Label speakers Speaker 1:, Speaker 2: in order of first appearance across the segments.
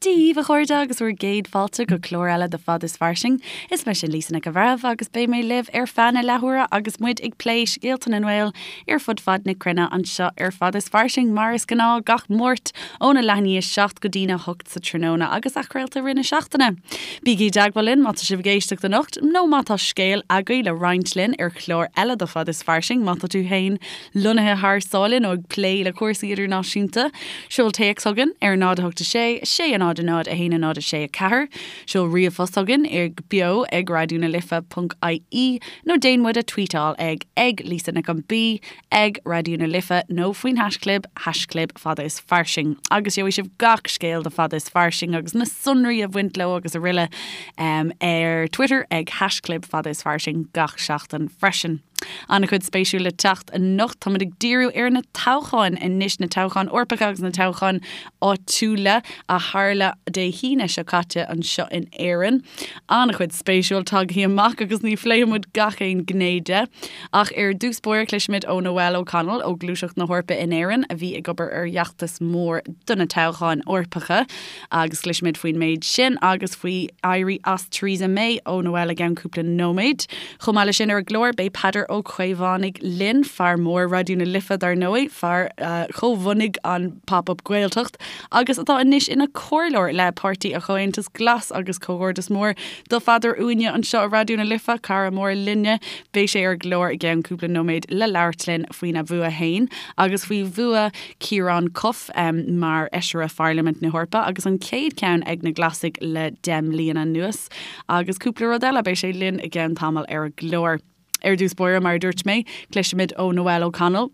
Speaker 1: Dia daoibh, a chairde, agus bhur gcéad fáilte go clár eile de Fad is Fairsing. Is mise Lisa Nic an Bhreithimh agus beidh mé libh ar feadh na leathuaire agus muid ag plé scéalta na nGael ar fud fad na cruinne anseo ar Fad is Fairsing mar is gnáth gach Máirt óna leath i ndiaidh a 7 go dtína 8 sa tráthnóna agus athchraolta i rith na seachtaine. Bígí i dteagmháil linn má tá sibh ag éisteacht anocht nó má tá scéal agaibh le roinnt linn ar chlár eile de Fad is Fairsing má tá tú féin lonnaithe thar sáile nó ag plé le cúrsaí idirnáisiúnta. Seol téacs chugainn ar 0 8 6 6 0 0 1 0 6 4, seol ríomhphost chugainn ag beo ag raidió na life ponc ie nó déan muid a tweetáil ag ag Lisa Nic an B ag Raidió na Life nó faoin haischlib haischlib fada is fairsing agus gheobhaidh sibh gach scéal de Fada is Fairsing agus na sonraí a bhaint leo agus araile ar Twitter ag haischlib fada is fairsing gach seachtain freisin. An-chuid spéisiúil le teacht anocht. Táimid ag díriú ar na toghcháin anois, na toghcháin Eorpacha agus na toghcháin áitiúla a tharla Dé hAoine seo caite anseo in Éirinn. An-chuid spéisiúil tagtha amach agus ní phléifidh muid gach aon ghné de. Ach ar dtús báire cloisfimid ó Noelle O'Connell ó Gluaiseacht na hEorpa in Éirinn a bhí ag obair ar fheachtas mór do na toghcháin Eorpacha. Agus cloisfimid faoin méid sin agus faoi éirí as Theresa May ó Noelle i gceann cúpla nóiméad. Chomh maith leis sin ar an gclár, beidh Peadar Ó Caomhánaigh linn, fear mór Raidió na Life dar ndóigh, fear a chomhbhunaigh an Pop Up Gaeltacht agus atá anois ina chomhairleoir le Páirtí an Chomhaontais Glas agus comhghairdeas mór do Pheadar uainne anseo i Raidió na Life, cara mór linne. Beidh sé ar an gclár i gceann cúpla nóiméad le labhairt linn faoina bhua fhéin agus faoi bhua Ciarán Cuffe mar Fheisire Pharlaimint na hEorpa agus an chéad cheann ag na Glasaigh le 10 mbliana anuas. Agus cúpla rud eile, beidh sé linn i gceann tamaill ar an gclár. Ar dtús báire, mar a dúirt mé, cloisfimid ó Noelle O'Connell.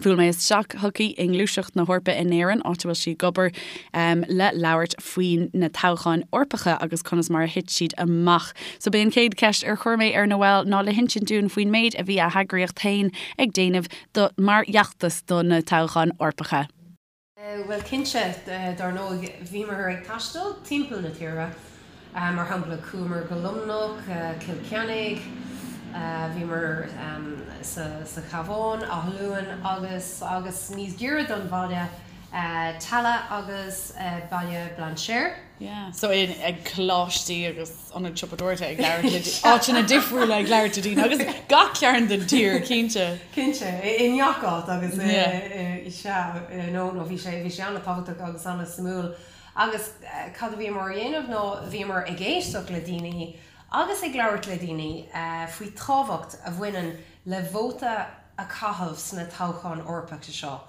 Speaker 1: Bhuail mé isteach chuici i nGluaiseacht na hEorpa in Éirinn, áit a bhfuil sí ag obair le labhairt faoi na toghcháin Eorpacha agus conas mar a thit siad amach. So b'é an chéad cheist ar chuir mé ar Noelle ná le hinsint dúinn faoin méid a bhí a heagraíocht féin ag déanamh do mar fheachtas do na toghcháin Eorpacha.
Speaker 2: Bhuel cinnte, dár ndóigh, bhíomar ag taisteal timpeall na tíre. Mar shampla, chuamar go Luimneach, Cill Chainnigh, bhíomar sa Chabhán, Áth Luain agus agus níos giorra don bhaile, Tallaght agus Baile Bhlainséir.
Speaker 1: Yeah, so ag coláistí agus. ionaid siopadóireachta ag labhairt le áiteanna difriúla ag labhairt le daoine agus gach cearn den tír, cinnte.
Speaker 2: Cinnte, i ngach áit agus sea, no, no, bhí sé, bhí sé an-tábhachtach agus an-suimiúil. Agus cad a bhíomar a dhéanamh ná bhíomar ag éisteacht le daoine agus ag labhairt le daoine faoi tábhacht a bhaineann le vóta a chaitheamh sna toghcháin Eorpacha seo.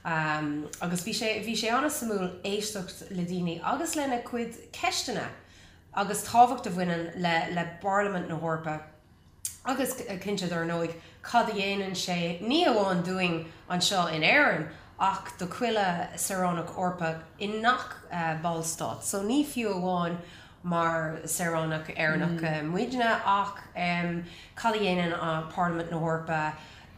Speaker 2: Agus bhí sé, bhí sé an-suimiúil éisteacht le daoine agus lena cuid ceisteanna. agus tábhacht a bhaineann le le bParlaimint na hEorpa agus cinnte dar ndóigh cad a dhéanann sé ní amháin dúinn anseo in Éirinn ach do chuile saoránach Eorpach i ngach ballstát. So ní fiú amháin mar saoránach Éireannach muidne ach cad a dhéanann Parlaimint na hEorpa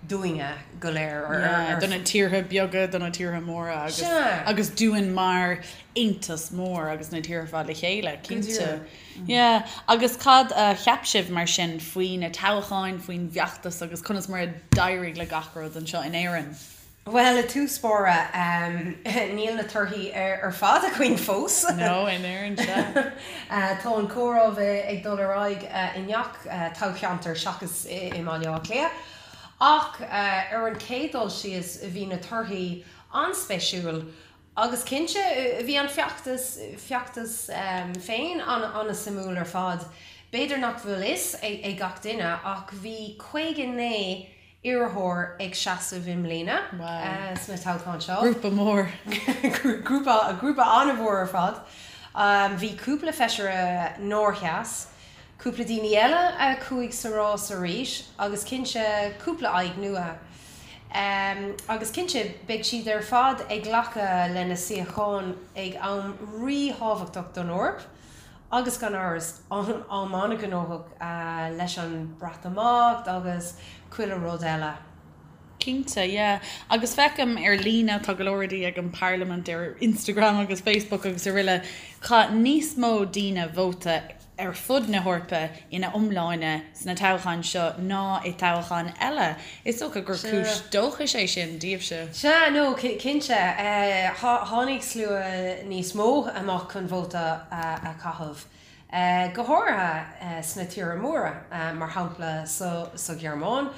Speaker 2: dúinne go léir
Speaker 1: ar. Do na tíortha beaga, do na tíortha móra agus agus dúinn mar aontas mór agus na tíortha ar fad le chéile, cinnte. Yeah. Agus cad a cheap sibh mar sin faoi na toghcháin, faoin bhfeachtas agus conas mar a d'éirigh le gach rud anseo in Éirinn?
Speaker 2: Bhuel, i dtús báire, níl na torthaí ar fad againn fós.
Speaker 1: No, in Éirinn, sea.
Speaker 2: Tá an comhaireamh ag dul ar aghaidh i ngach toghcheantar seachas i mBaile Átha Cliath. Ach ar an chéad dul síos, bhí na torthaí an-spéisiúil agus cinnte, bhí an feachtas, feachtas féin an-suimiúil ar fad. B'fhéidir nach bhfuil fhios ag gach duine ach bhí 59 iarrthóir ag seasamh i mbliana sna toghcháin seo.
Speaker 1: Grúpa mór.
Speaker 2: Grúpa, grúpa an-mhór ar fad. Bhí cúpla feisire nár sheas, cúpla daoine eile a chuaigh sa rás arís agus cinnte cúpla aghaidh nua. Agus cinnte beidh siad ar fad ag glacadh lena suíocháin ag am ríthábhachtach don Eoraip. Agus gan amhras, am an-ghnóthach leis an Breatimeacht agus chuile rud eile.
Speaker 1: Cinnte, yeah. Agus feicim ar líne, tá go leor rudaí ag an Parlaimint ar Instagram agus Facebook agus araile, chaith níos mó daoine vóta. ar fud na hEorpa ina iomláine sna toghcháin seo ná i toghcháin eile. Is dócha gur cúis dóchais é sin daoibhse.
Speaker 2: Sea, no, cinnte. Tháinig slua níos mó amach chun vóta a chaitheamh, go háirithe sna tíortha móra, mar shampla sa Ghearmáin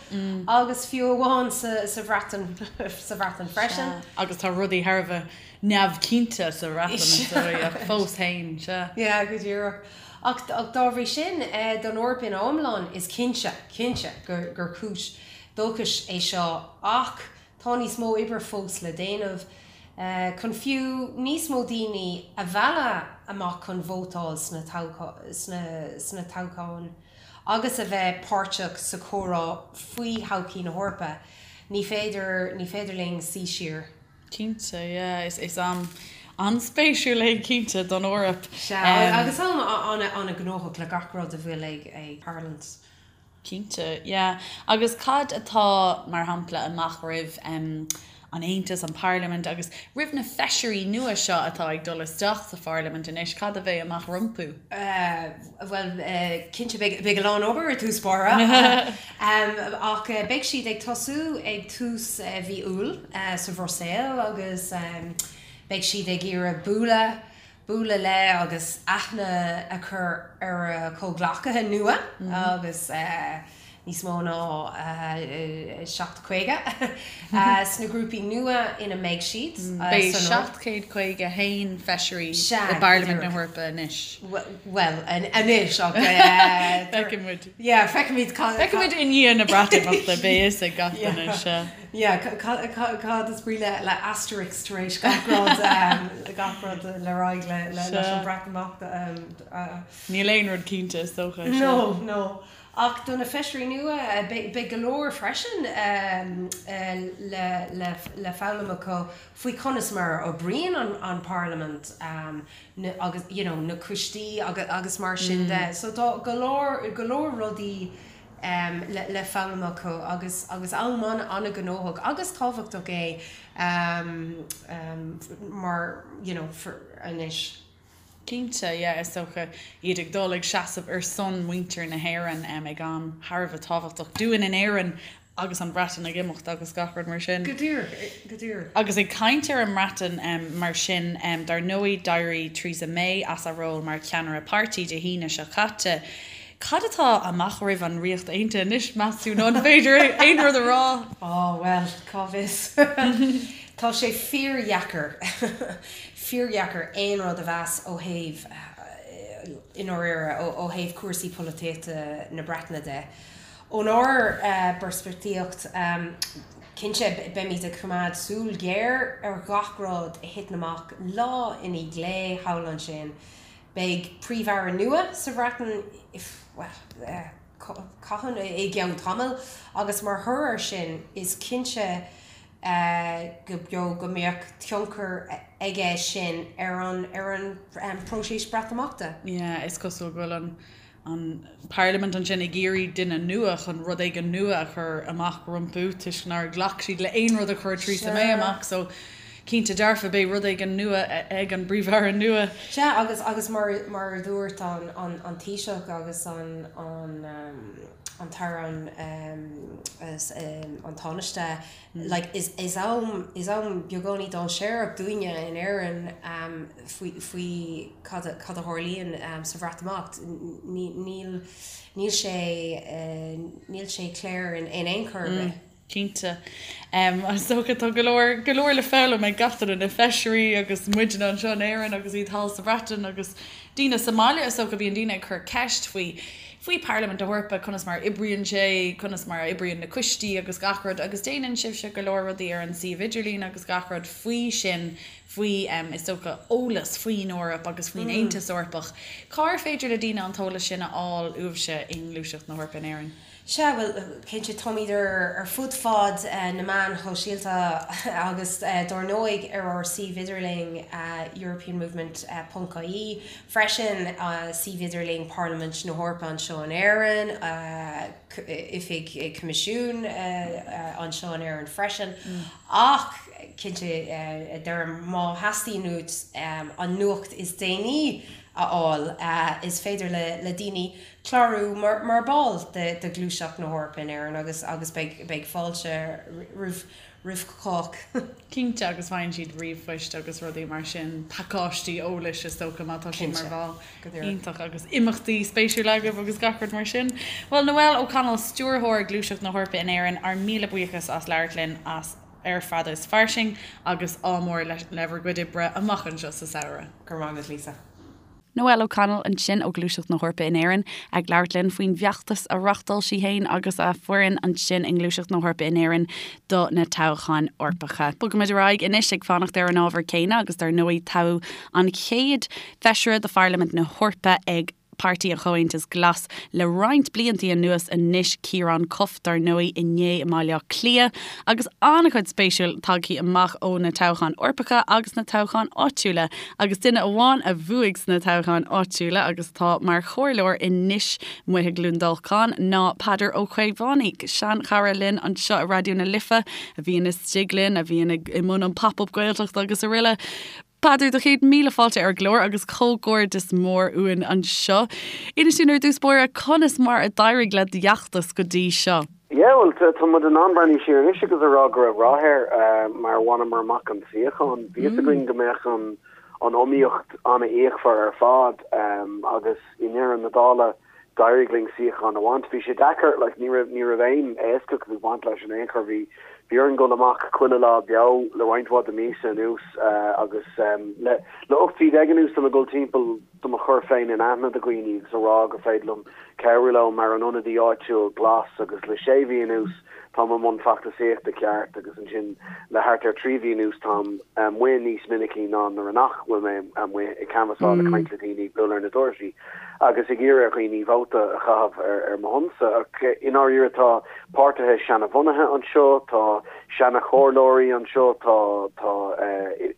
Speaker 2: agus fiú amháin sa Bhreatain, sa Bhreatain freisin.
Speaker 1: Sea, agus tá rudaí thar a bheith neamhchinnte sa Bhreatain, is dóigh, ach fós féin, sea.
Speaker 2: Yeah, go díreach. Ach dá bhrí sin, don Eoraip ina iomlán, is cinnte, cinnte gur cúis dóchais é seo ach tá níos mó oibre fós le déanamh chun fiú níos mó daoine a mhealladh amach chun vótáil sna toghcháin agus a bheith páirteach sa chomhrá faoi thodhchaí na hEorpa. Ní féidir, ní féidir linn suí siar.
Speaker 1: Cinnte, yeah. Is am an-spéisiúil é cinnte don Eoraip.
Speaker 2: Sea, agus am an-ghnóthach le gach rud a bhfuil ag tarlúint.
Speaker 1: Cinnte, yeah. Agus cad atá, mar shampla, amach roimh an Aontas, an Pharlaimint, agus roimh na feisirí nua seo atá ag dul isteach sa Pharlaimint anois, cad a bheidh amach rompu?
Speaker 2: Bhuel, cinnte, beidh a lán obair i dtús báire. Ach beidh siad ag tosú ag tús mhí Iúil sa Bhruiséil agus beidh siad ag iarraidh bualadh, bualadh le agus aithne a chur ar a gcomhghleacaithe nua agus níos mó ná 750 sna grúpaí nua ina mbeidh siad.
Speaker 1: Beidh 751 feisirí i bParlaimint na hEorpa anois.
Speaker 2: Bhuel, anois ach.
Speaker 1: Feicfidh muid.
Speaker 2: Yeah, feicfimid
Speaker 1: cad. Feicfimid i ndiaidh na Breatimeachta, beidh fhios ag gach duine, sea.
Speaker 2: Yeah, cad is brí le asterisk tar éis gach rud, gach rud le raghaidh leis an Bhreatimeacht.
Speaker 1: Níl aon rud cinnte, is dócha.
Speaker 2: No, no. Ach do na feisirí nua, beidh go leor freisin le foghlaim acu faoi conas mar a oibríonn an Pharlaimint agus you know na coistí agus mar sin de. So tá go leor, go leor rudaí le foghlaim acu agus agus am an-ghnóthach agus tábhachtach é mar you know anois.
Speaker 1: Cinnte, yeah, is dócha iad ag dul ag seasamh ar son muintir na hÉireann ag am thar a bheith tábhachtach dúinn in Éirinn agus an Bhreatain ag imeacht agus gach rud mar sin.
Speaker 2: Go díreach, go díreach.
Speaker 1: Agus ag caint ar an mBreatain mar sin, dar ndóigh d'éirigh Theresa May as a ról mar cheannaire páirtí Dé hAoine seo caite. Cad atá amach roimh an Ríocht Aontaithe anois, meas tú, nó an féidir aon rud a rá?
Speaker 2: Á, bhuel, cá bhfios. Tá sé fíordheacair, fíordheacair aon rud a mheas ó thaobh, i ndáiríre, ó thaobh cúrsaí polaitíochta na Breataine de. Ónár bpeirspictíocht, cinnte, beimid ag coimeád súil ghéar ar ghach rud a thiteann amach lá i ndiaidh lae thall ansin. Beidh Príomh-Aire nua sa Bhreatain, bhuel, cathain, i gceann tamaill agus mar thoradh air sin is cinnte go beo go mbeadh tionchar aige sin ar an ar an bpróiseas Breatimeachta.
Speaker 1: Yeah, is cosúil go bhfuil an an Parlaimint ansin ag iarraidh duine nua chun rud éigin nua a chur amach rompu toisc nár ghlac siad le aon rud a chuir Theresa May amach so cinnte dearfa beidh rud éigin nua ag an bPríomh-Aire nua.
Speaker 2: Sea, agus agus mar mar a dúirt an an an Taoiseach agus an an an tAire an an Tánaiste, like is is am is am beagáinín dainséarach dúinne in Éirinn faoi faoi cad a cad a tharlaíonn sa Bhreatimeacht. Ní níl níl sé níl sé clear in in aon chor ar bith.
Speaker 1: Cinnte. Is dócha tá go leor, go leor le foghlaim ag gach duine, na feisirí agus muidne anseo in Éirinn agus iad thall sa Bhreatain agus daoine sa mbaile is dócha. Bíonn daoine ag cur ceist faoi, faoi Parlaimint na hEorpa, conas mar a oibríonn sé, conas mar a oibríonn na coistí agus gach rud agus déanann sibhse go leor rudaí ar an suíomh idirlín agus gach rud faoi sin, faoi, is dócha, eolas faoin Eoraip agus faoin Aontas Eorpach. Cár féidir le daoine an t-eolas sin a fháil uaibhse i nGluaiseacht na hEorpa in Éirinn?
Speaker 2: Sea, bhuel, cinnte, táimid ar fud fad na meáin shóisialta agus dár ndóigh ar ár suíomh idirlín europeanmovement ponc ie freisin, suíomh idirlín Parlaimint na hEorpa anseo in Éirinn, oifig Coimisiún anseo in Éirinn freisin. Ach, cinnte, deirim, má theastaíonn uait an nuacht is déanaí a. a fháil. Is féidir le daoine clárú mar ball de Ghluaiseacht na hEorpa in Éirinn agus agus beidh beidh fáilte roimh roimh chách.
Speaker 1: Cinnte, agus faigheann siad ríomhphoist agus rudaí mar sin, pacáistí eolais is dócha má tá siad mar bhall. Iontach, agus imeachtaí spéisiúla agaibh agus gach rud mar sin. Bhuel, Noelle O'Connell, Stiúrthóir Gluaiseacht na hEorpa in Éirinn, ár míle buíochas as labhairt linn as ar Fada is Fairsing agus ádh mór le bhur gcuid oibre amach anseo sa samhradh.
Speaker 2: Go raibh maith agat, Lisa.
Speaker 1: Noelle O'Connell ansin ó Ghluaiseacht na hEorpa in Éirinn ag labhairt linn faoin bhfeachtas a reáchtáil sí féin agus a foireann ansin i nGluaiseacht na hEorpa in Éirinn do na toghcháin Eorpacha. Bogaimid ar aghaidh anois ag fanacht ar an ábhar céanna agus dar ndóigh toghadh an chéad Feisire de Pharlaimint na hEorpa ag Páirtí an Chomhaontais Glas le roinnt bliantaí anuas anois, Ciarán Cuffe, dar ndóigh, inné i mBaile Átha Cliath, agus an-chuid spéisiúil tagthaí amach ó na toghcháin Eorpacha agus na toghcháin áitiúla, agus duine amháin a bhuaigh sna toghcháin áitiúla agus atá mar chomhairleoir anois amuigh i gCluain Dolcáin ná Peadar Ó Caomhánaigh, seanchara linn anseo i Raidió na Life, a bhíonn istigh linn, a bhíonn i mbun an Pop Up Gaeltacht agus araile. Peadar, do chéad míle fáilte ar an gclár agus comhghairdeas mór uainn anseo. Inis dúinn ar dtús báire conas mar a d'éirigh le d'fheachtas go dtí seo?
Speaker 3: Yeah, bhuel, tá muid in ann breathnú siar anois agus a rá go raibh rath air mar bhaineamar amach an suíochán. Bhí fhios againn go mbeadh an iomaíocht an-fhíochmhar ar fad agus i ndeireadh na dála, D'éirigh linn suíochán a bhaint. Bhí sé deacair, like, ní raibh, ní raibh aon éascaíocht ag baint leis in aon chor. Bhí, bhí orainn dul amach chuile lá beo le roinnt mhaith de míosa anuas agus le, le 18 mhí anuas tá mé ag dul timpeall do mo chur féin in aithne do dhaoine agus a rá gur féidir liom cabhrú leo mar an ionadaí áitiúil glas agus le sé mhí anuas Táim i mbun feachtasaíochta ceart agus ansin le thart ar 3 mhí anuas táim amuigh níos minicí ná nuair a nach bhfuil mé amuigh ag canbhasáil, ag caint le daoine, ag bualadh ar na doirse agus ag iarraidh ar dhaoine vóta a chaitheamh ar mo shonsa. Ach i ndáiríre tá páirtithe seanabhunaithe anseo, tá seana-chomhairleoirí anseo, tá tá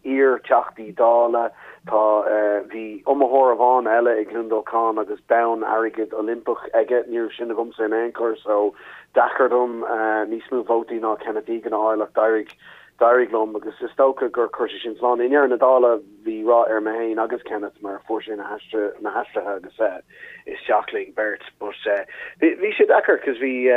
Speaker 3: iar-Theachtaí Dála, tá bhí iomaitheoir amháin eile i gCluain Dolcáin agus bonn airgid Oilimpeach aige, ní raibh sin agamsa in aon chor so deacair dom níos mó vótaí ná Kenneth Egan a fháil ach d'éirigh, d'éirigh liom agus is dócha gur chuir sé sin slán. I ndeireadh na dála bhí rath ar mé féin agus Kenneth mar fuair sé na na haistrithe agus isteach linn beirt but bhí, bhí sé deacair cos bhí,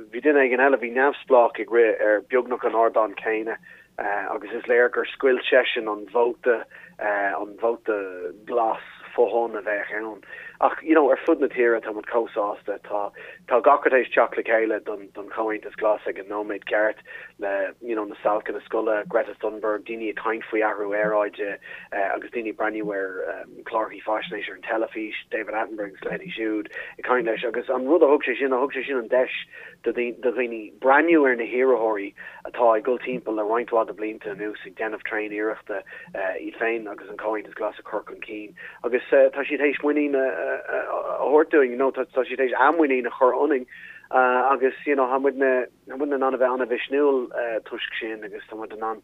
Speaker 3: bhí duine éigin eile, bhí neamhspleách ag rith ar beagnach an ardán céanna agus is léir gur scoilt seisean an vóta, an vóta glas fo-thon a bheadh ann. Ach, you know, ar fud na tíre tá muid chomh sásta, tá, tá gach rud théis teacht le chéile don, don Chomhaontas Glas ag an nóiméad ceart le, you know, na stailceanna scoile, Greta Thunberg, daoine ag caint faoi athrú aeráide agus daoine ag breathnú ar cláracha faisnéise ar an teilifís, David Attenborough agus leithéidí siúd ag caint leis agus an rud a thug sé sin, thug sé sin an deis do dhaoine breathnú ar na hiarrthóirí atá ag dul timpeall le roinnt mhaith de bhlianta anuas ag déanamh tréan-iarrachta iad féin agus an Comhaontas Glas a chur chun cinn agus tá siad théis muinín a thabhairt dúinn, nó tá siad théis a muinín a chur ionainn agus you know tá muidne tá muidne in ann a bheith an-mhisniúil toisc sin agus tá muid in ann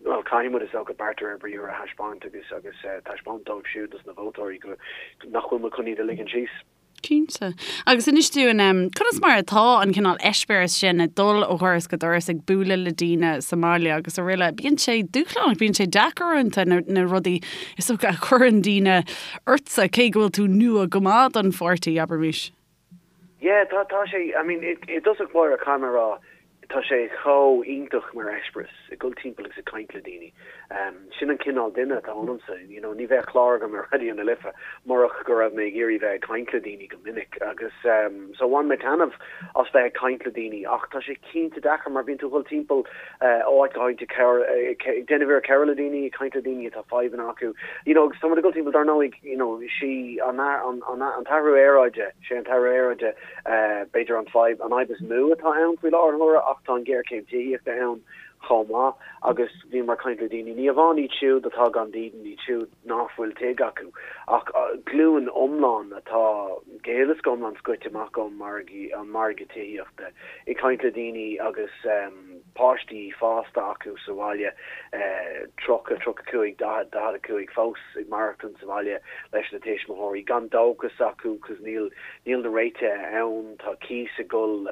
Speaker 3: bhuel caithfidh muid is dócha beart de réir briathair a thaispeáint agus agus taispeáint dóibh siúd dos na vótóirí go nach bhfuil muid chun iad a ligean síos.
Speaker 1: Cinnte. Agus inis dúinn, conas mar atá an cineál eispéireas sin ag dul ó dhoras go doras ag bualadh le daoine sa mbaile agus araile. Bíonn sé dúshlánach, bíonn sé deacair uaireanta na, na rudaí is dócha a chuireann daoine ortsa, cé go bhfuil tú nua go maith don pháirtí, abraimis.
Speaker 3: Yeah, tá, tá sé, I mean, i, i dtosach báire caithfidh mé a rá, Tá sé chomh iontach mar eispéireas, ag dul timpeall agus ag caint le daoine. Sin an cineál duine atá ionamsa, you know, ní bheadh clár agam ar Raidió na Life murach go raibh mé ag iarraidh bheith ag caint le daoine go minic agus so bhain mé taitneamh as bheith ag caint le daoine ach tá sé cinnte deacair mar bíonn tú ag dul timpeall ó áit go háit ag ag déanamh iarracht cabhrú le daoine, ag caint le daoine atá fadhbanna acu, you know, agus tá muid ag dul timpeall dar ndóigh, you know, sí an an an t-athrú aeráide, sé an t-athrú aeráide B'fhéidir an fadhb, an fhadhb is mó atá ann faoi láthair na huaire ach tá an ghéarchéim tithíochta ann chomh maith agus bhíomar ag caint le daoine, ní amháin iad siúd atá gan dídean, iad siúd nach bhfuil tigh acu, ach glúin iomlán atá go huile is go hiomlán scoite amach ón margadh, an margadh tithíochta. Ag caint le daoine agus páistí fásta acu sa bhaile, 30, 35, 40, 45, fós ag maireachtaint sa bhaile leis na tuismitheoirí, gan dóchas acu cos níl, níl na réitithe ann, tá cíos ag dul.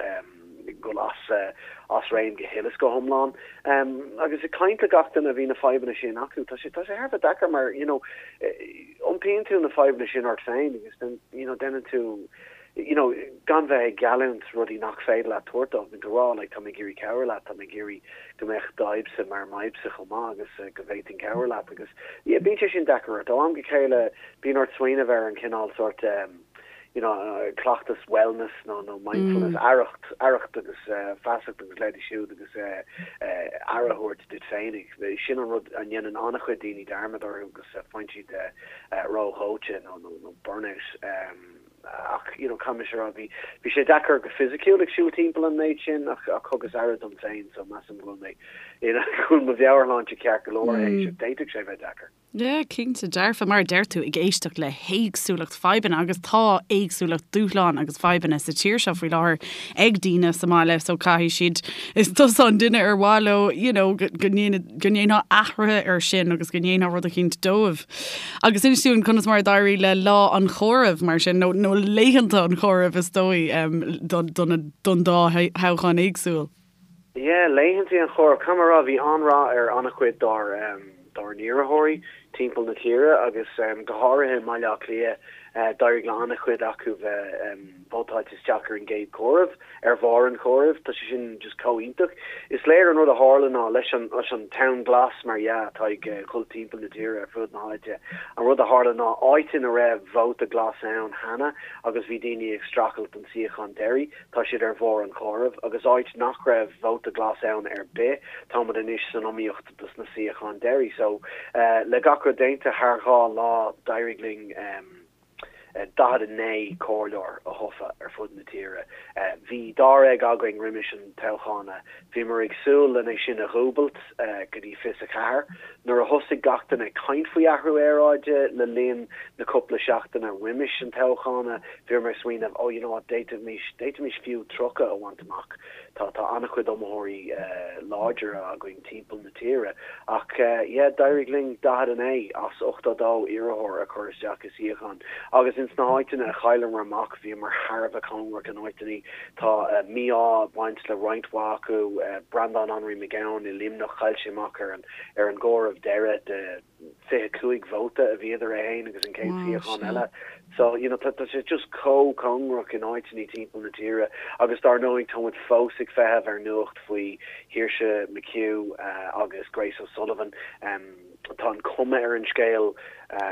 Speaker 3: ag dul as as réim go huile is go hiomlán. Agus ag caint le gach duine a bhí na fadhbanna sin acu, tá sé tá sé thar a bheith deacair mar you know iompaíonn tú na fadhbanna sin ort féin agus then you know déanann tú you know gan bheith ag geallúint rudaí nach féidir leat tabhairt dóibh, bíonn tú ag rá like tá mé ag iarraidh cabhrú leat, tá mé ag iarraidh go mbeadh d'fhadhbsa mar m'fhadhbsa chomh maith agus go bhféadfainn cabhrú leat agus yeah bíonn sé sin deacair ort. Ó am go chéile bíonn ort smaoineamh ar an chineál sórt you know cleachtas wellness nó nó mindfulness, aireacht, aireacht agus feasacht agus leithéidí siúd agus aire a thabhairt duit féinig. Sin an rud a ndéanann an-chuid daoine dearmad orthu agus faigheann siad ródhóite nó nó nó burnout. Ach you know caithfidh mise a rá bhí bhí sé deacair go fisiciúil ag siúl timpeall an méid sin ach ach thugas aire dom féin so measaim go bhfuil mé you know go bhfuil mo mheabhairshláinte ceart go leor théis ach d'fhéadfadh sé bheith deacair.
Speaker 1: Yeah, cinnte dearfa, mar a deir tú, ag éisteacht le héagsúlacht fadhbanna agus tá éagsúlacht dúshlán agus fadhbanna sa tír seo faoi láthair ag daoine sa mbaile so caithfidh siad, is tusa an duine ar mhaith leo you know go go ndéanfá athruithe air sin agus go ndéanfá rud eicínt dóibh. Agus inis dúinn conas mar a d'éirigh le lá an chomhairimh mar sin, nó nó laethanta an chomhairimh is dóigh don don don dá thoghchán éagsúil.
Speaker 3: Yeah, laethanta an chomhairimh. Caithfidh mé a rá, bhí an-rath ar an-chuid dár dár n-iarrthóirí timpeall na tíre agus go háirithe i mBaile Átha Cliath, d'éirigh le an-chuid acu bheith vótáilte isteach ar an gcéad chomhaireamh, ar bharr an chomhairimh. Tá sé sin just chomh iontach. Is léir an rud a tharla ná leis an leis an tonn glas mar dhea atá ag dhul timpeall na tíre ar fud na háite, an rud a tharla ná áit ina raibh vóta glas ann cheana agus bhí daoine ag streachailt don suíochán deiridh, Tá siad ar bharr an chomhairimh, agus áit nach raibh vóta glas ann ar bith, táimid anois san iomaíocht dos na suíocháin deiridh. So, le gach rud déanta thar 2 lá, d'éirigh linn 49 comhairleoir a thofa ar fud na tíre. Bhí dáréag againn roimis an toghchán. Bhíomar ag súil len é sin a dhúbailt go dtí 24. Nuair a thosaigh gach duine ag caint faoi athrú aeráide le linn na cúpla seachtaine roimis an toghchán, bhíomar ag smaoineamh, oh you know what, d'fhéadfaimis, d'fhéadfaimis fiú 30 a bhaint amach. Tá, tá an-chuid iomaitheoirí láidre againn timpeall na tíre. Ach yeah, d'éirigh linn 49 as 82 iarrthóir a chur isteach i suíochán. Agus ins na háiteanna a chailleamar amach, bhíomar thar a bheith cóngarach in áiteanna. Tá mí-ádh ag baint le roinnt mhaith acu, Breandán Anraí Mac Gabhann i Luimneach, chaill sé amach ar an ar an gcomhaireamh deiridh de 25 vóta a bhí idir é féin agus an chéad suíochán eile. So, you know, tá sé just chomh cóngarach in áiteanna timpeall na tíre agus dár ndóigh tá muid fós ag feitheamh ar nuacht faoi Shaoirse McHugh agus Grace O'Sullivan. Tá an cuma ar an scéal,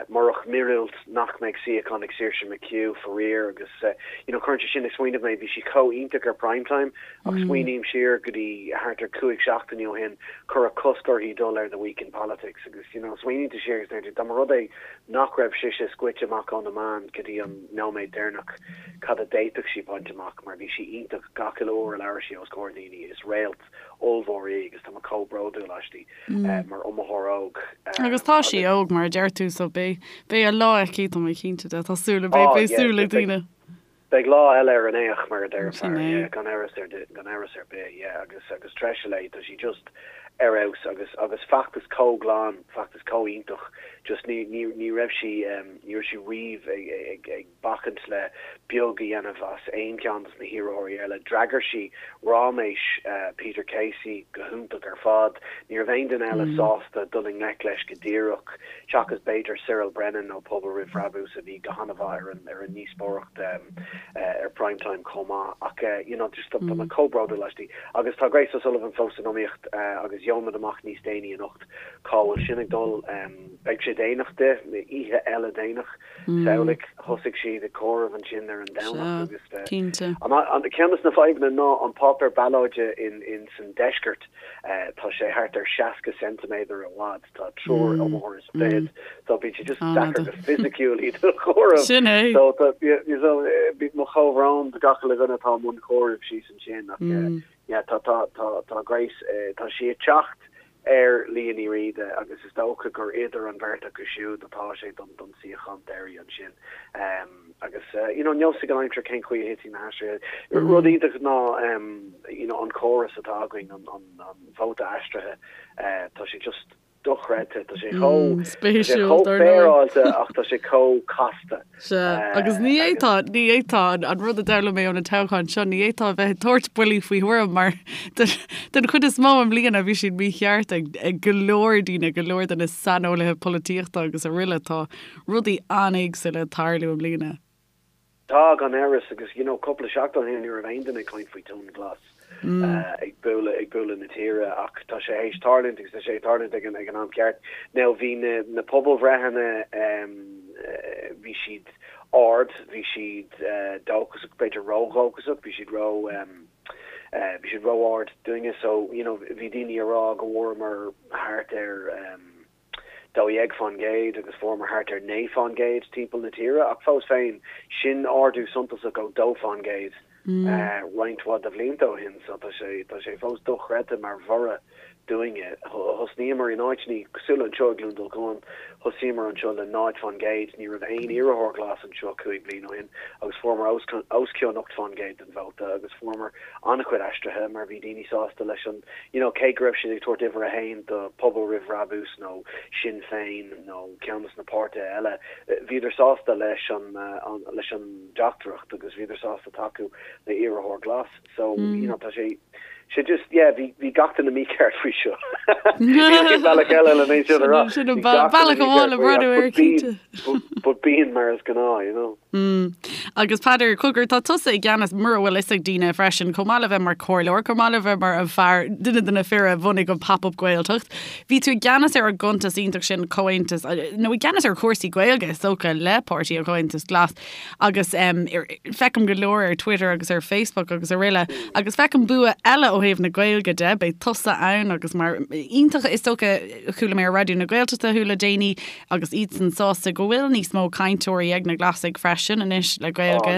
Speaker 3: murach míorúilt, nach mbeidh suíochán ag Saoirse McHugh, faraor, agus you know cuireann sé sin ag smaoineamh mé, bhí sí chomh iontach ar Prime Time ach smaoiním siar go dtí thart ar 5 seachtaine ó shin, cuireadh cosc uirthi dul ar The Week in Politics agus you know smaoiníonn tú siar agus deir tú dá mba rud é nach raibh sise scoite amach ó na meáin go dtí an nóiméad deireanach cad a d'fhéadfadh sí baint amach mar bhí sí iontach gach uile uair a labhair sí os comhair daoine, is réalt ollmhór í agus tá mé chomh bródúil aisti. mar iomaitheoir óg.
Speaker 1: Agus tá sí óg, mar a deir tú, so beidh, beidh a lá aici, tá mé cinnte de, tá súil, beidh, beidh súil ag daoine.
Speaker 3: Beidh lá eile ar an fhéich, mar a deir an fear, yeah, gan amhras ar, gan amhras ar bith, yeah, agus, agus treise léi, tá sí just ar fheabhas agus, agus feachtas chomh glan, feachtas chomh iontach, just ní, ní, ní raibh sí, ní raibh sí riamh ag, ag, ag, bacaint le beag a dhéanamh as aon cheann dos na hiarrthóirí eile. D'fhreagair sí ráiméis Peter Casey go hiontach ar fad. Ní raibh aon duine eile sásta dul i ngleic leis go díreach, seachas b'fhéidir Cyril Brennan ó Pobal Roimh Bhrabús a bhí go han-mhaith ar an ar an ndíospóireacht ar Prime Time chomh maith. Ach you know just tá mé chomh bródúil aisti. Agus tá Grace O'Sullivan fós san iomaíocht agus gheobhaimid amach níos déanaí anocht cá bhfuil sin ag dul. Beidh sé déanach di, oíche eile déanach. Samhlaigh, thosaigh siad ag comhaireamh ansin ar an Domhnach agus an ceann de na fadhbanna ná an páipéar ballóide in san deisceart, tá sé thart ar 60 ceintiméadar i bhfad, tá triúr iomaitheoir is fichead, so bíonn sé just deacair go fisiciúil iad a chomhaireamh.
Speaker 1: Sin é.
Speaker 3: So tá mo chomhbhrón do gach uile dhuine atá i mbun comhairimh síos ansin ach yeah tá tá tá tá Grace tá sí ag teacht ar Liadh Ní Riada agus is dócha gur idir an bheirt acu siúd atá sé don don suíochán deiridh ansin. Agus you know níl a fhios ag an aimsir cén chaoi a thitfidh na haistrithe. Rud iontach ná you know an córas atá againn, an an an vóta aistrithe, tá sé just. dochreidte. Tá sé chomh tá sé chomh féaráilte ach tá sé chomh casta.
Speaker 1: Sea, agus ní fhéadfá, ní fhéadfá, an rud a d'fhoghlaim mé ó na toghcháin seo, ní fhéadfá a bheith ag tabhairt buillí faoi thuairim mar den chuid is mó i mbliana bhí siad mícheart ag ag go leor daoine, go leor de na saineolaithe polaitíochta agus araile. Tá rudaí an-éagsúla ag tarlú i mbliana.
Speaker 3: Tá, gan amhras, agus you know cúpla seachtain ó shin ní raibh aon duine ag caint faoi tonn glas ag bualadh ag bualadh na tíre ach tá sé théis tarlúint agus tá sé ag tarlúint ag an ag an am ceart. Now bhí na na pobalbhreitheanna bhí siad ard, bhí siad dóchasach, b'fhéidir ródhóchasach, bhí siad ró bhí siad ró-ard dúinne so you know bhí daoine ag rá go bhfuaireamar thart ar 12% agus fuaireamar thart ar 9% timpeall na tíre, ach fós féin, sin ardú suntasach ó 2% roinnt mhaith de bhlianta ó shin, so tá sé, tá sé fós dochreidte mar bhorradh dúinne. Thosnaíomar in áiteanna cosúil le anseo i gCluain Dolcáin, thosaíomar anseo le 0%, ní raibh aon iarrthóir glas anseo 5 bliana ó shin agus fuaireamar os cionn 8% den vóta agus fuaireamar an-chuid aistrithe mar bhí daoine sásta leis an, you know, cé go raibh siad ag tabhairt uimhir a haon do Pobal Roimh Bhrabús nó Sinn Féin nó ceann de na páirtithe eile, bhíodar sásta leis an, leis an dteachtaireacht agus bhíodar sásta tacú le iarrthóir glas. So, you know, tá sé, sé just, yeah, bhí, bhí gach duine mícheart faoi seo. Níl aon bhealach eile le é sin a rá.
Speaker 1: Sin an bealach amháin le breathnú air, cinnte.
Speaker 3: But bíonn mar is gnáth, you know.
Speaker 1: Mm. Agus Peadar, cogar, tá tusa i gceannas, mura bhfuil fhios ag daoine freisin, chomh maith le bheith mar comhairleoir, chomh maith le bheith mar an fear, duine de na fir a bhunaigh an Pop-Up Gaeltacht, bhí tú i gceannas ar an gcuntas iontach sin, Comhaontas, nó i gceannas ar chúrsaí Gaeilge, is dócha, le Páirtí an Chomhaontais Glas, agus um, feicim go leor ar Twitter agus ar Facebook agus araile, agus feicim bua eile ó thaobh na Gaeilge de, beidh tusa ann agus mar iontach is dócha chuala mé ar Raidió na Gaeltachta thú le déanaí, Agus iadsan sásta go bhfuil níos mó cainteoirí ag na Glasaigh freisin anois le Gaeilge.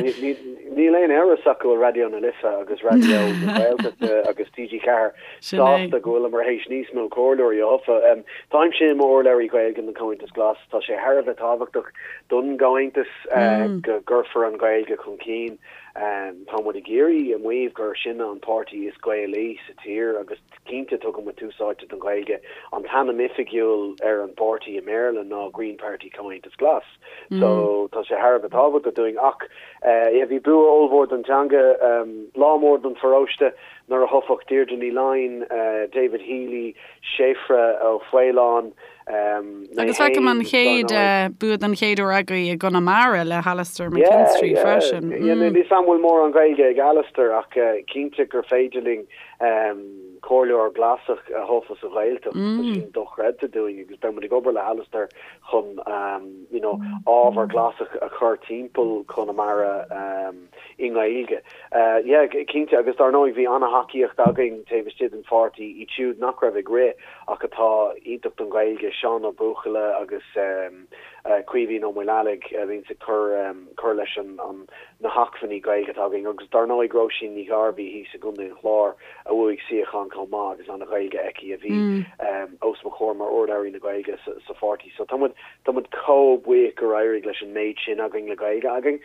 Speaker 3: Níl aon amhras ach go bhfuil Raidió na Life agus Raidió na Gaeltachta agus TG4 sásta go bhfuileamar théis níos mó comhairleoirí a thoghadh. Táimse i m'urlabhraí Gaeilge don Chomhaontas Glas. Tá sé thar a bheith tábhachtach don gComhaontas go gcuirfear an Ghaeilge chun cinn. Tá muid ag iarraidh a mhaíomh gur sinne an páirtí is Gaelaí sa tír agus Cinnte, tugann muid tús áite don Ghaeilge. An t-ainm oifigiúil ar an bpáirtí i mBéarla ná Green Party Comhaontas Glas. So, tá sé thar a bheith tábhachtach dúinn. Ach, yeah, bhí bua ollmhór don teanga, lá mór don pharóiste nuair a thoghadh Deirdre Ní Fhloinn, David Healy, Séafra Ó Faoláin,
Speaker 1: mé Agus feicim an chéad bua den chéad uair agaibh i gConamara le hAlastair McKinstry freisin.
Speaker 3: Yeah, yeah. Níl 'fhios a'm an bhfuil mórán Gaeilge ag Alastair ach cinnte gur féidir linn Comhairleoir Glasach a thoghadh sa Ghaeltacht, tá sin dochreidte dúinn agus beidh muid ag obair le hAlastair chun you know ábhar Glasach a chur timpeall Chonamara i nGaeilge. Yeah, cinnte agus dar ndóigh bhí an-thacaíocht againn taobh istigh den pháirtí, iad siúd nach raibh ag rith ach atá iontach don Ghaeilge, Seán Ó Buachalla agus Caoimhín Ó Maoileallaigh a bhíonns ag cur cur leis an na hacmhainní Gaeilge atá againn agus dar ndóigh Róisín Ní Ghairbhí thíos i gContae an Chláir a bhuaigh suíochán chomh maith agus an-Ghaeilge aici a bhí os mo chomhair mar urlabhraí na Gaeilge sa pháirtí. So tá muid tá muid chomh buíoch gur éirigh leis an méid sin againn le Gaeilge againn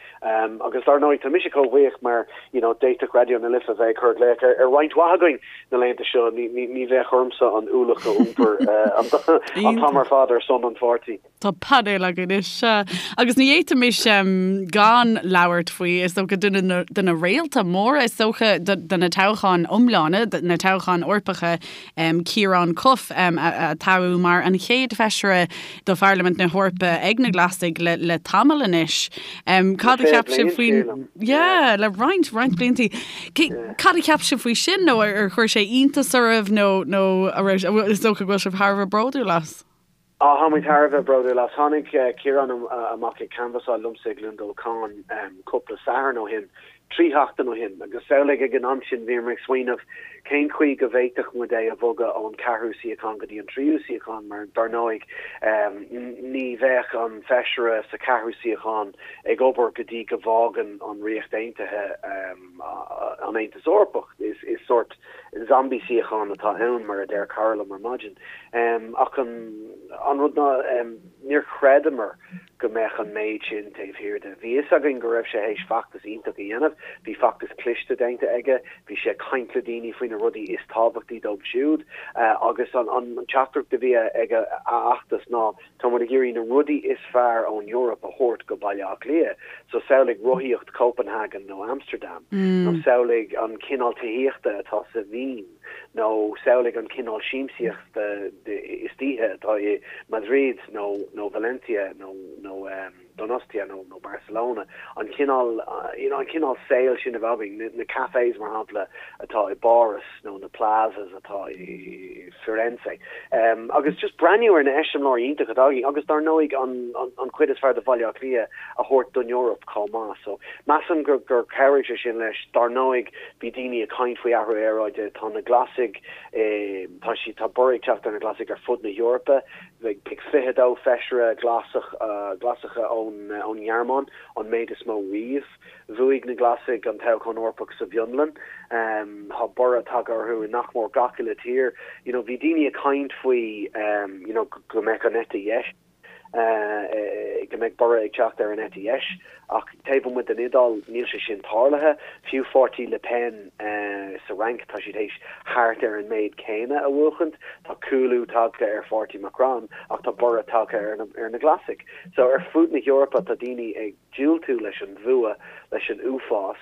Speaker 3: agus dar ndóigh tá mise chomh buíoch mar you know d'fhéadfadh Raidió na Life a bheith ag cur glaoch ar ar roinnt mhaith againn na laethanta seo ní ní ní bheadh ormsa an ualach a iompar an t-am ar fad ar son an pháirtí.
Speaker 1: Tá painéal againn anois, sea. Agus ní fhéadfaimis gan labhairt faoi, is dócha, duine de na réalta móra, is dócha, de na toghcháin iomlána, na toghcháin Eorpacha, Ciarán Cuffe, a toghadh mar an chéad feisire do Pharlaimint na hEorpa ag na Glasaigh le tamall anois. Cad a cheap sibh faoin... Yeah, le roinnt, roinnt blianta. Cad a cheap sibh faoi sin nó ar chuir sé iontas oraibh nó, nó is dócha go bhfuil sibh thar a bheith bródúil as?
Speaker 3: Á, tá muid thar a bheith bródúil as. Tháinig Ciarán amach ag canbhasáil liomsa i gCluain Dolcáin cúpla Satharn ó shin, 3 sheachtain ó shin, agus samhlaigh ag an am sin bhíomar ag smaoineamh cén chaoi go bhféadfadh muid é a bhogadh ón ceathrú suíochán go dtí an tríú suíochán mar dar ndóigh ní bheadh an feisire sa cheathrú suíochán ag obair go dtí go bhfágann an Ríocht Aontaithe an Aontas Eorpach. Is sórt zombie suíochán atá ann, mar a deir cara liom ar maidin. Ach an rud ná, níor chreideamar go mbeadh an méid sin taobh thiar de. Bhí fhios againn go raibh sé théis feachtas iontach a dhéanamh. fad. Bhí feachtas cliste déanta aige, bhí sé ag caint le daoine faoi na rudaí is tábhachtaí dóibh siúd agus an teachtaireacht a bhí ag a fheachtas ná tá muid ag iarraidh na rudaí is fearr ón Eoraip a thabhairt go Baile Átha Cliath. So samhlaigh rothaíocht Copenhagen nó Amsterdam nó samhlaigh an cineál tithíochta atá sa Vín nó samhlaigh an cineál siamsaíochta istoíche atá i Madrid nó nó Valencia nó nó Donostia nó nó Barcelona, an cineál you know an cineál saoil sin a bheith againn, na na cafés mar shampla atá i bPáras nó na plazas atá i Firenze. Agus just breathnú ar na eiseamláirí iontacha atá againn agus dar ndóigh an an an chuid is fearr de Bhaile Átha Cliath a thabhairt don Eoraip chomh maith. So measaim gur gur chabhraigh sé sin leis. Dar ndóigh bhí daoine ag caint faoi athrú aeráide, tá na Glasaigh tá siad tá borradh ag teacht ar na Glasaigh ar fud na hEorpa. Beidh 22 feisire glasach Glasacha ón nGearmáin, an méid is mó riamh. Bhuaigh na Glasaigh an toghchán Eorpach sa bhFionlainn. Tá borradh tagtha orthu i nach mór gach uile tír. You know, bhí daoine ag caint faoi you know, go mbeadh an eite dheis, go mbeadh borradh ag teacht ar an eite dheis. Ach taobh amuigh den Iodáil, níl sé sin tarlaithe. Fiú pháirtí Le Pen sa Fhrainc, tá siad théis thart ar an méid céanna a bhuachaint. Tá cúlú tagtha ar pháirtí Macron ach tá borradh tagtha ar na Glasaigh. So ar fud na hEorpa tá daoine ag diúltú leis an bhfuath, leis an uafás,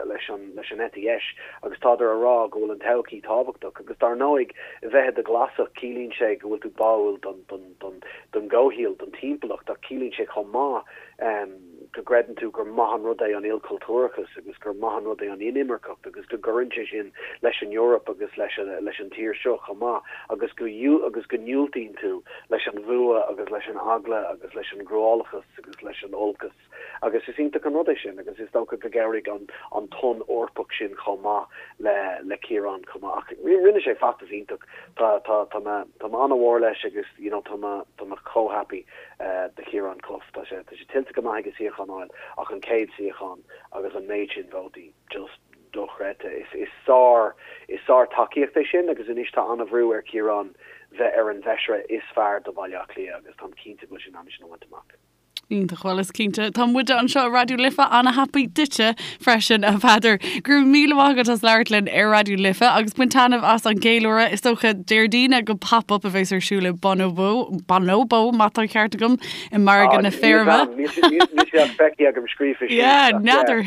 Speaker 3: leis an leis an eite dheis agus tádar a rá go bhfuil an todhchaí tábhachtach. Agus dar ndóigh, bheith i do Ghlasach, ciallaíonn sé go bhfuil tú báúil don don don don gcomhshaol, don timpeallacht ach ciallaíonn sé chomh maith go gcreideann tú gur maith an rud é an ilchultúrachas agus gur maith an rud é an inimirceacht agus go gcuireann sé sin leis an Eoraip agus leis leis an tír seo chomh maith agus go agus go ndiúltaíonn tú leis an bhfuath agus leis an eagla agus leis an gcruálachas agus leis an olcas agus is iontach an rud é sin agus is dócha go gcabhraigh an an tonn Eorpach sin chomh maith le le Ciarán chomh maith ach rinne sé feachtas iontach tá tá tá mé tá mé an-mhór leis agus you know tá mé tá mé chomh happy do Chiarán Cuffe. Tá sé tá sé tuillte go maith aige suíochán a fháil ach an chéad suíochán agus an méid sin vótaí, just dochreidte. Is is sár is sár tacaíocht é sin agus anois tá an-bhrú ar Chiarán bheith ar an bhfeisire is fearr do Bhaile Átha Cliath agus táim cinnte go bhfuil sé in ann é sin a bhaint amach.
Speaker 1: Iontach, bhuel is cinnte tá muide anseo i Raidió Life ana-happy duitse freisin a Pheadair. Go raibh míle maith agat as labhairt linn ar Raidió Life agus bain taitneamh as an gceiliúradh. Is dócha Déardaoin ag an Pop-Up a bheas ar siúl i Bonobo, Bonobo má tá an ceart agam, i Margadh na Feirme.
Speaker 3: Níl sé ach feicthe agam scríofa síos.
Speaker 1: Yeah, n'fheadar.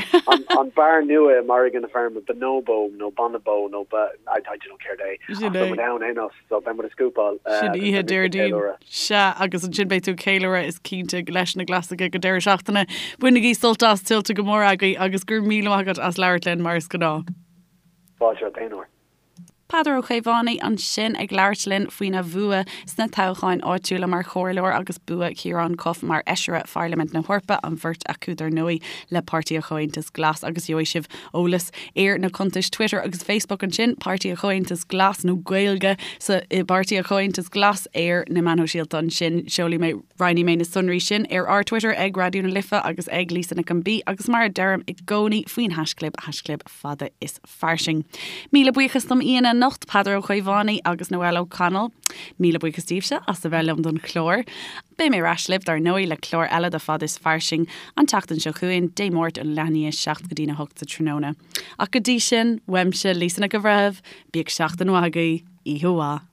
Speaker 3: An beár nua i Margadh na Feirme, Bonobo nó Bonobo nó I don't know céard é. Ach tá muid ann aon nós. So beidh muid ag scúpáil.
Speaker 1: Sin oíche Déardaoin. Sea, agus ansin beidh tú ag ceiliúradh is cinnte leis na Glasaigh ag an deireadh seachtaine. Bainigí sult as, tuillte go mór agaibh agus go raibh míle maith agat as labhairt linn mar is gnáth.
Speaker 3: Fáilte romhat aon uair.
Speaker 1: Peadar Ó Caomhánaigh ansin ag labhairt linn faoina bhua sna toghcháin áitiúla mar chomhairleoir agus bua Chiarán Cuffe mar fheisire Pharlaimint na hEorpa, an bheirt acu dar ndóigh le Páirtí an Chomhaontais Glas agus gheobhaidh sibh eolas ar na cuntais Twitter agus Facebook ansin, Páirtí an Chomhaontais Glas nó Gaeilge sa i bPáirtí an Chomhaontais Glas ar na meáin shóisialta ansin. Seolfaidh mé, roinnfidh mé na sonraí sin ar ár Twitter ag Raidió na Life agus ag Lisa Nic an B agus mar a deirim i gcónaí faoin haischlib, haischlib fada is fairsing. Míle buíochas dom aíonna anocht, Peadar Ó Caomhánaigh agus Noelle O'Connell. Míle buíochas daoibhse as a bheith liom don chlár. Beidh mé ar ais libh, dar ndóigh, le clár eile de Fad is Fairsing an tseachtain seo chugainn, Dé Máirt ón leath i ndiaidh 7 go dtína 8 sa tráthnóna. Ach go dtí sin, uaimse, Lisa Nic an Bhreithimh, bíodh seachtain mhaith agaibh, oíche mhaith.